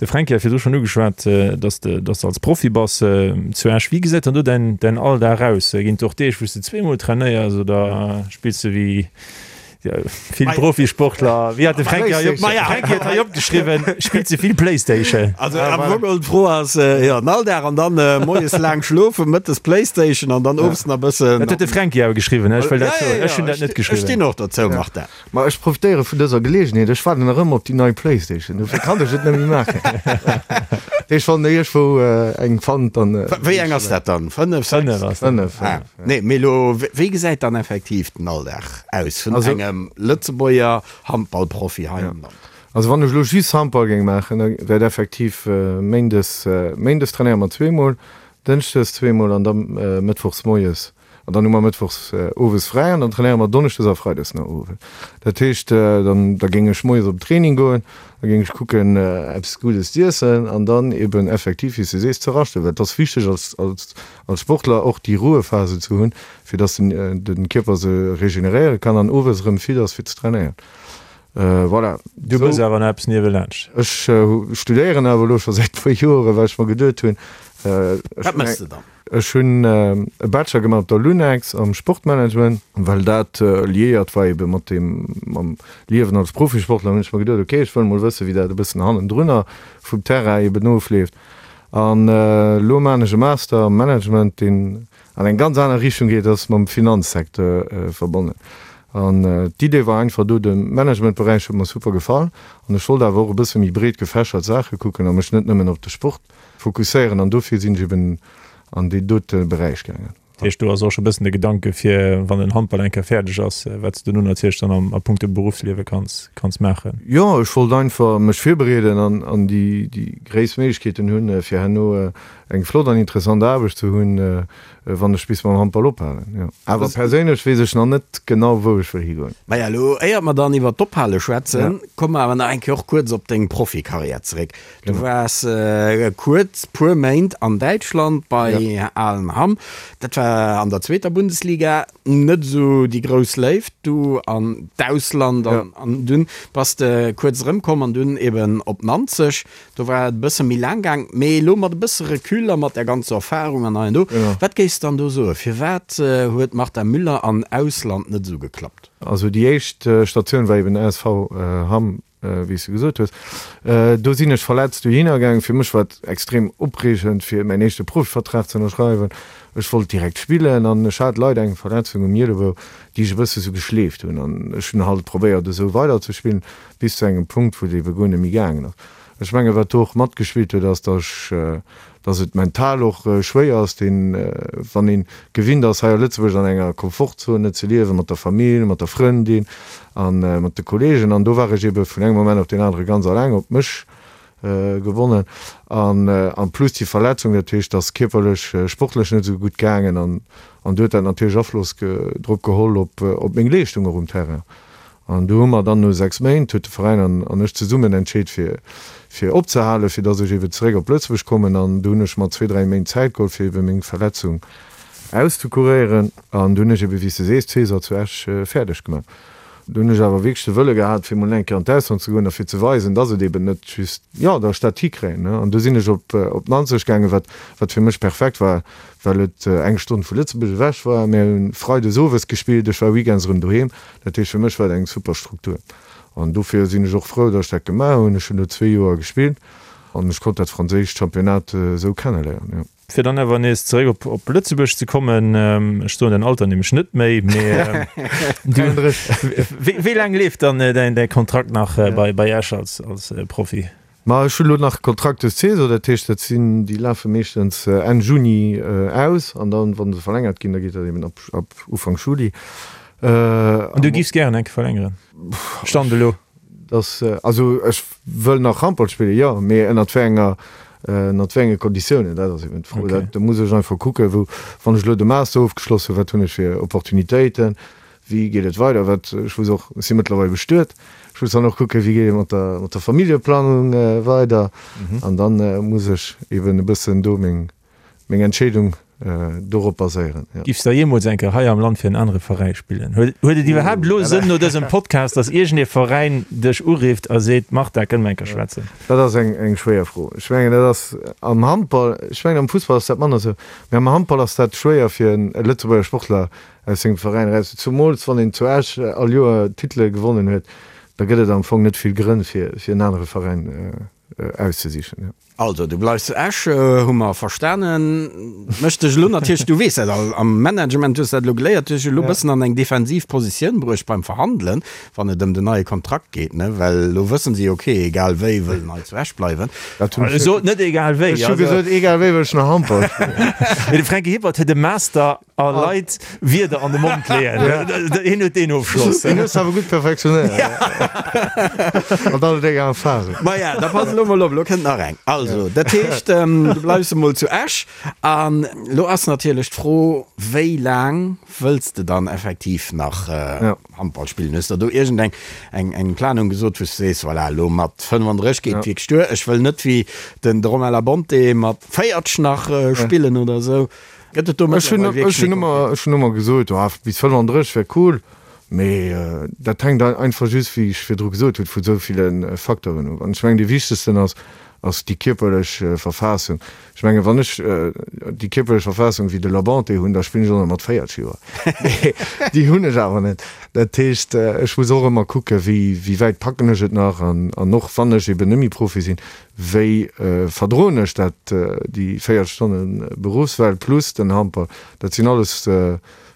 De Fränki hat virdru schonn ugeschwat, dass de, dass de als Profi bass zu Esch. Wéi gesäit dann do däin, däin Alldag aus? Ginn et och Deeg, wou s de zweemol trainéiers oder spills de wéi. Vill Profisportler, wéi hat de Fränki hei op, Fränki huet hei opgeschriwwen, spillt ze vill Playstation. Also am Fong geholl d'Fro ass, jo, den Alldag an dann moies laang schlofen, mëttes Playstation an dann owes nach bëssen. Dat huet de Fränki awer geschriwwen, ech wëll dat soen, ech hunn dat net geschriwwen. Ech stinn och dozou, Martin. Ma ech profitéiere vun dëser Geleegenheet, ech waarden nach ëmmer op déi nei Playstation, dofir kann ech et net méi maachen. Dat heescht, wann der iergendwou eng fannt, dann. Wéi eng ass dat dann? 5, 6? 5 ass dat. 5, 5. Nee, mee elo, wéi gesäit dann effektiv den Alldag aus vun engem Lëtzebuerger Handballprofi hei am Land? Also wann ech elo just Handball géing maachen, da wär et effektiv méindes, méindes trainéiere mer zweemol, dënschdes zweemol an da mëttwochs moies. An dann hu mer mëttwochs owes fräi an dann trainéiere mer donneschdes a freides no owes. Dat heescht, dann da géing ech moies op den Training goen, da géing ech kucken eppes Guddes z'iessen an dann eben effektiv, wéi s de sees, ze raschten, well et ass wichteg als, als als Sportler och déi Ruhephase ze hunn, fir dass den de Kierper se regeneréiere kann an owes erëm fit ass fir ze trainéieren. Voilà. Du méchs awer nach eppes niewelaanscht? Ech studéieren awer elo scho säit puer Joren, well ech mer geduet hunn, Wat méchs de dann? Ech hunn e Bachelor gemaach op der Lunex am Sportmanagement, well dat liéiert war ebe mat deem, mam Liewen als Profisportler, hunn ech mer geduet, ok, ech wëll mol wëssen, wéi dat e bëssen hannendrunner vum Terrain eben ofleeft. An elo maachen ech e Master am Management, deen an eng ganz aner Richtung geet, ass mam Finanzsecteur verbonnen. An d'Idee war einfach do, de Managementberäich huet mer super gefall an ech wollt awer och e bësse méi breet gefächert Saache kucken a mech net nëmmen op de Sport fokusséieren an dofir sinn ech eben an deen dote Beräich gaangen. Dat heescht, do ass och scho bëssen de Gedanke fir, wann den Handball eng Kéier fäerdeg ass, wat s de dono natierlech dann am a punkto Beruffsliewe kanns kanns maachen. Jo, ech wollt einfach mech virbereeden an an déi déi gréisst Méiglechkeeten hunn, fir herno eng flott an interessant Aarbecht ze hunn, wann ech bis mam Handball ophalen. Jo, awer perséinlech weess ech nach net genau, wou ech wëll higoen. Maja, elo éiert mer dann iwwert d'Ophale schwätzen, komme mer awer nach eng Kéier och kuerz op deng Profikarriär zeréck. Du waars kuerz, puer Méint an Däitschland bei Aalen Hamm. Dat war an der zweeter Bundesliga. Net esou déi grouss Léift du an d'Ausland an dunn bass de kuerz erëmkomm an dunn eben op Nanzeg. Do war et e bësse méi laang gaang. Mee elo mat e bësse Recul a mat där ganzer Erfarung an hei an do, wat géifs dann do soen, firwat huet d'Marta Müller an Ausland net esou geklappt? Also déi éischt Statioun war eben ASV Hamm wéi s de gesot hues. Do sinn ech verletzt dohinner gaangen. Fir mech war et extrem opreegend, fir mäin éischte Profivertrag ze ënnerschreiwen. Ech wollt direkt spillen an ech hat leider eng Verletzung um Ielebou, déi ech e bësse sou geschleeft hunn. An ech hunn halt probéiert, esou weiderzespillen, bis zu engem Punkt, wou et ebe guer net méi gaangen ass. Ech mengen, wat do och matgespillt huet, ass, datt ech, datt et mental och schwéier ass, deen, wann ee gewinnt ass, hei a Lëtzebuerg an enger Komfortzone ze liewen, mat der Famill, mat der Frëndin a mat de Kolleegen. An do war ech ebe vun engem Moment op deen anere ganz alleng op mech gewonnen. An en plus déi Verletzung, dat heescht, et ass kierperlech, sportlech net esou gutt gaangen. An an do huet dat natierlech Afloss drop geholl op op meng Leeschtung och um Terrain. An du hu mer dann no 6 Méint, huet de Veräin an an ech zesummen entscheet fir fir opzehalen, fir dass ech eeben zeréck op Lëtzebuerg kommen. An du hunn ech mer zwee, dräi Méint Zäit geholl fir eebe meng Verletzung auszukuréieren. An du hunn ech eebe wéi s de sees d'Saison zu Esch fäerdeg gemaach. Du hunn ech awer wierklech de Wëlle gehat fir mol eng Kéier an d'Ausland ze goen a fir ze weisen, dass et eeben net just, jo, dass ech dat hikréien, ne. An du sinn ech op op Nanzeg gaangen, wat wat fir mech perfekt war, well et eng Stonn vu Lëtzebuerg ewech war. Mir hunn freides owes gespillt, ech war weekends erëm doheem. Dat heescht, fir mech war et eng super Struktur an dofir sinn ech och frou, datt ech dat gemaach hunn. Ech hunn do zwee Joer gespillt an ech konnt dat franséischt Championnat esou kenneléieren, jo. Fir dann awer nees zeréck op op Lëtzebuerg ze kommen, ech soen däin Alter nämlech net méi, mee du, wéi wéi laang leeft dann däin däi Kontrakt nach bei bei Esch als als Profi? Ma ech hunn elo nach Kontrakt des Saison, dat heescht, dat sinn, déi lafe meeschtens Enn Juni aus an dann, wa se verlängert ginn, da geet dat eben ab ab Ufank Juli. An du giffs gären eng Kéier verlängeren, Stand elo? Dass, also ech wëll nach Handball spillen, jo, mee ënnert wéi enger, ënnert wéi enge Konditiounen, dat ass eben d'Fro. Dat, do muss ech einfach kucken, wou, wann ech elo de Master ofgeschloss hunn, wat hunn ech fir Opportunitéiten, Wéi geet et weider? Wat, ech muss och, ech si mëttlerweil bestuet, ech muss dann och kucken, wéi geet et mat der, mat der Familljeplanung weider. An dann muss ech eben e bëssen do meng, meng Entscheedung. Dorop baséieren, jo. Giffs der jeemools eng Kéier hei am Land fir en anere Veräi spillen? Huet et iwwerhaapt elo Sënn no dësem Podcast, dass iergend ee Veräin dech urifft a seet, Martin, kënne mer eng Kéier schwätzen? Dat ass eng eng schwéier Fro. Ech mengen, dat ass am Handball, ech mengen am Fussball ass dat manner esou, mee am Handball ass dat schwéier fir en Lëtzebuerger Sportler aus sengem Veräin eraus, zumools wann een zu Esch all Joer Titele gewonnen huet, da gëtt et am Fong net vill Grënn fir fir en anere Veräin auszesichen. Also, du bleifs zu Esch, hu mer verstanen. Mécht dech elo natierlech, du weess dat all, am Management hues dat elo geléiert, dech elo e bëssen an eng defensiv Positioun bruecht beim Verhandelen, wann et ëm den neie Kontrakt geet, ne? Well elo wëssen si, ok, egal wéi wëll en hei zu Esch bleiwen. Dat hunn ech. Sot net egal wéi. Ech hu gesot, egal wéi wëll ech nach Handball spillen. Mee de Franky Hippert huet e Master A Leit Wierder an de Mond leeën. Hien huet deen Ofschloss. Deen hues de awer gutt perfektionéiert. Mat all denger Erfahrung. Maja, da pass elo mol op, elo kënnt nach eng. Also, dat heescht, du bleifs emol zu Esch. An elo ass natierlech d'Fro, wéi laang wëlls de dann effektiv nach Handball spillen? Hues der do iergendeng eng eng Planung gesot, wou s de sees, voilà, elo mat 35 geet et wierklech duer, ech wëll net wéi den de Romain Labonte mat 40 nach spillen oder esou? Gëtt et do Ech hunn mëttlerweil ech hunn wierklech ëmmer ech hunn ëmmer gesot, oh, bis 35 wär cool, mee dat hänkt einfach just, wéi ech virdru gesot hunn, vu sou ville Facteuren of. An ech mengen, dee wichtegsten ass, ass déi kierperlech Verfassung. Ech mengen, wann ech déi kierperlech Verfassung wéi de Labonte hunn, da spillen ech och nach mat 40 Joer. Mee déi hunn ech awer net. Dat heescht, ech muss och ëmmer kucken, wéi wéi wäit packen ech et nach an an och wann ech eben net méi Profi sinn, Wéi verdroen ech dat, déi 40 Stonne Beruffswelt plus den Handball? Dat sinn alles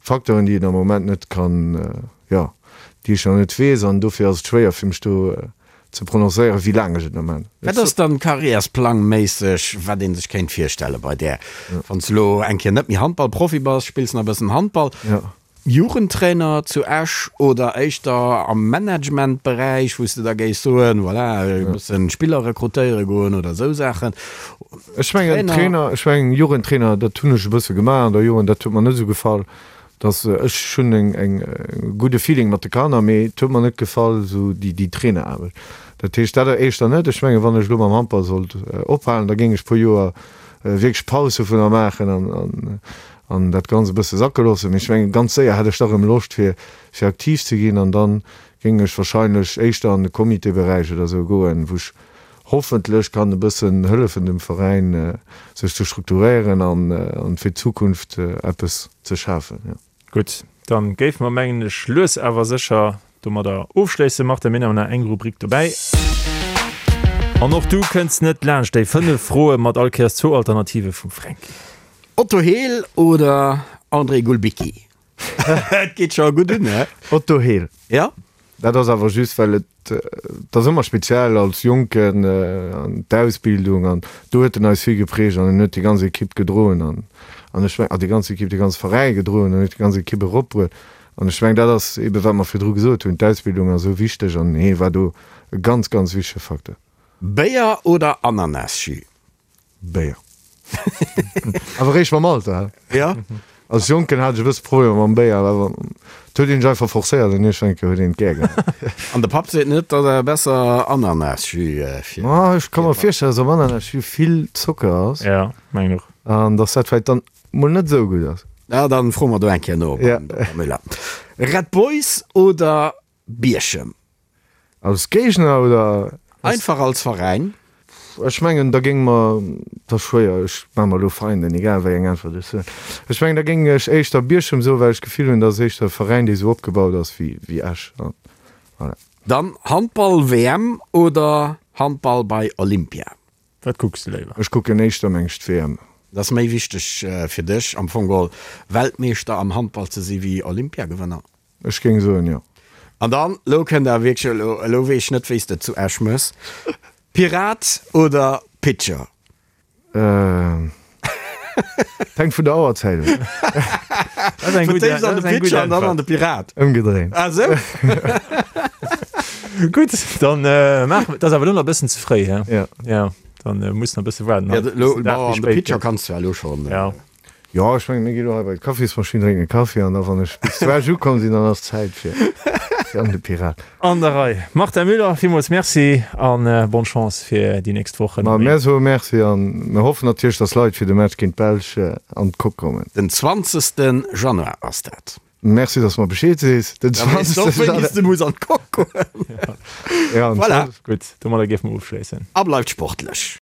Facteuren, déi een am Moment net kann, jo, déi ech nach net weess. An dofir ass et schwéier fir mech do ze prononcéieren, wéi laang ech et nach maachen. Wat ass dann karriärsplangméisseg, wat ee sech kéint virstelle bei där, wann s de elo eng Kéier net méi Handballprofi bass, spills nach e bëssen Handball? Jugendtrainer zu Esch oder éischter am Managementberäich, wou s de da géifs soen, voilà, e bëssen Spiller rekrutéiere goen oder esou Saachen? Ech mengen Trainer, ech mengen Jugendtrainer, dat hunn ech e bësse gemaach an der Jugend, dat huet mer net esou gefall, dass ech hunn eng eng gudde Feeling mat de Kanner, mee et huet mer net gefall esou déi déi Traineraarbecht. Dat heescht dat éischter net. Ech mengen, wann ech elo mam Handball sollt ophalen, da géing ech puer Joer wierklech Paus dovunner maachen an an an dat Ganzt e bësse sacke loossen. Mee ech mengen, ganz séier hätt ech da rëm Loscht, fir, fir aktiv ze ginn. An da géing ech wahrscheinlech éischter an de Comitéberäich oder esou goen, wou ech hoffentlech kann e bëssen hëllefen, dem Veräin sech ze strukturéieren an, an fir d'Zukunft eppes ze schafen, jo. Gutt, dann géife mer, mengen ech, lues awer sécher domadder ofschléissen. Martin, mir hunn awer nach eng Rubrik dobäi. An och du kënns net laanscht déi 5 Froe mat all Kéiers zwou Alternative vum Fränki. Otto Hehl oder André Gulbicki? Et geet scho gutt un, he? Otto Hehl. Ja? Dat ass awer just, well et, et ass ëmmer speziell als Jonken an d'Ausbildung an do huet en eis vill geprägt an en huet déi ganz Ekipp gedroen an an ech meng, ah déi ganz Ekipp, dee ganze Veräi gedroen an huet déi ganz Ekipp eropbruet an ech meng, dat ass eebe wat mer virdru gesot hunn, d'Ausbildung ass esou wichteg an hee war do e ganz, ganz wichtege Facteur. Béier oder Ananasjus? Béier. Awer réischt mam Alter, hä? Ja. Als Jonken hat ech e bësse Problemer mam Béier, awer et huet een sech einfach forcéiert an iergendwann huet een et gär gehat. An de Papp seet net, datt awer besser Ananasjus fir. Ma ech ka mer virstellen, datt am Ananasjus vill Zocker ass. Ja, mengen och. An datt dat vläicht dann mol net esou gutt ass. Ja, dann froe mer do eng Kéier no beim Dokter Müller. Red Boys oder Bierchem? Als Géigner oder? Einfach als Veräin. Ech mengen da géing mer, et ass schwéier, ech maache mer elo Feinden, egal wéi eng Äntwert ech soen, ech mengen da géing ech éischter Bierchem soen, well ech d'Gefill hunn, dat ass éischter e Veräin dee sou opgebaut ass wéi Esch. Voilà. Dann Handball-WM oder Handball bei Olympia? Wat kucks de léiwer? Ech kucken éischter meng ech d'WM. Et ass méi wichteg fir dech am Fong geholl Weltmeeschter am Handball ze si wéi Olympiagewënner? Ech géing soen, jo. An dann, elo kënnt awer wierklech, elo, elo weess ech net, wéi s de et zu Esch méchs, Pirat oder Pitcher? Hänkt vun der Auerzäit of. Dat ass eng gutt, dat ass eng gutt Äntwert. An de Pirat. Ëmgedréint. Ah sou? Gutt, dann maache mer, dat ass awer elo nach e bëssen ze fréi, he? Ja. Ja, dann muss nach e bësse waarden. Ja, elo, bon, an de Pitcher kanns du ja elo schonn. Ja. Jo, ech mengen, mir gi lo hei bei d'Kaffismaschinn, drénken e Kaffi an da wann ech bis zu Esch ukomm sinn, dann ass Zäit fir. Jan de Pirat. An der Rei. Martin Müller, villmools Merci an bonne Chance fir déi nächst Wochen. Ma mär soe Merci an mir hoffen natierlech, dass Leit fir de Match géint d'Belsch an d'Coque kommen. Den 20. Januar ass dat. Merci, dass mer Bescheed sees. Den 20. Da weess de och, wéini s de muss an d'Coque goen. Voilà. Gutt, domadder géife mer ofschléissen. A bleift sportlech.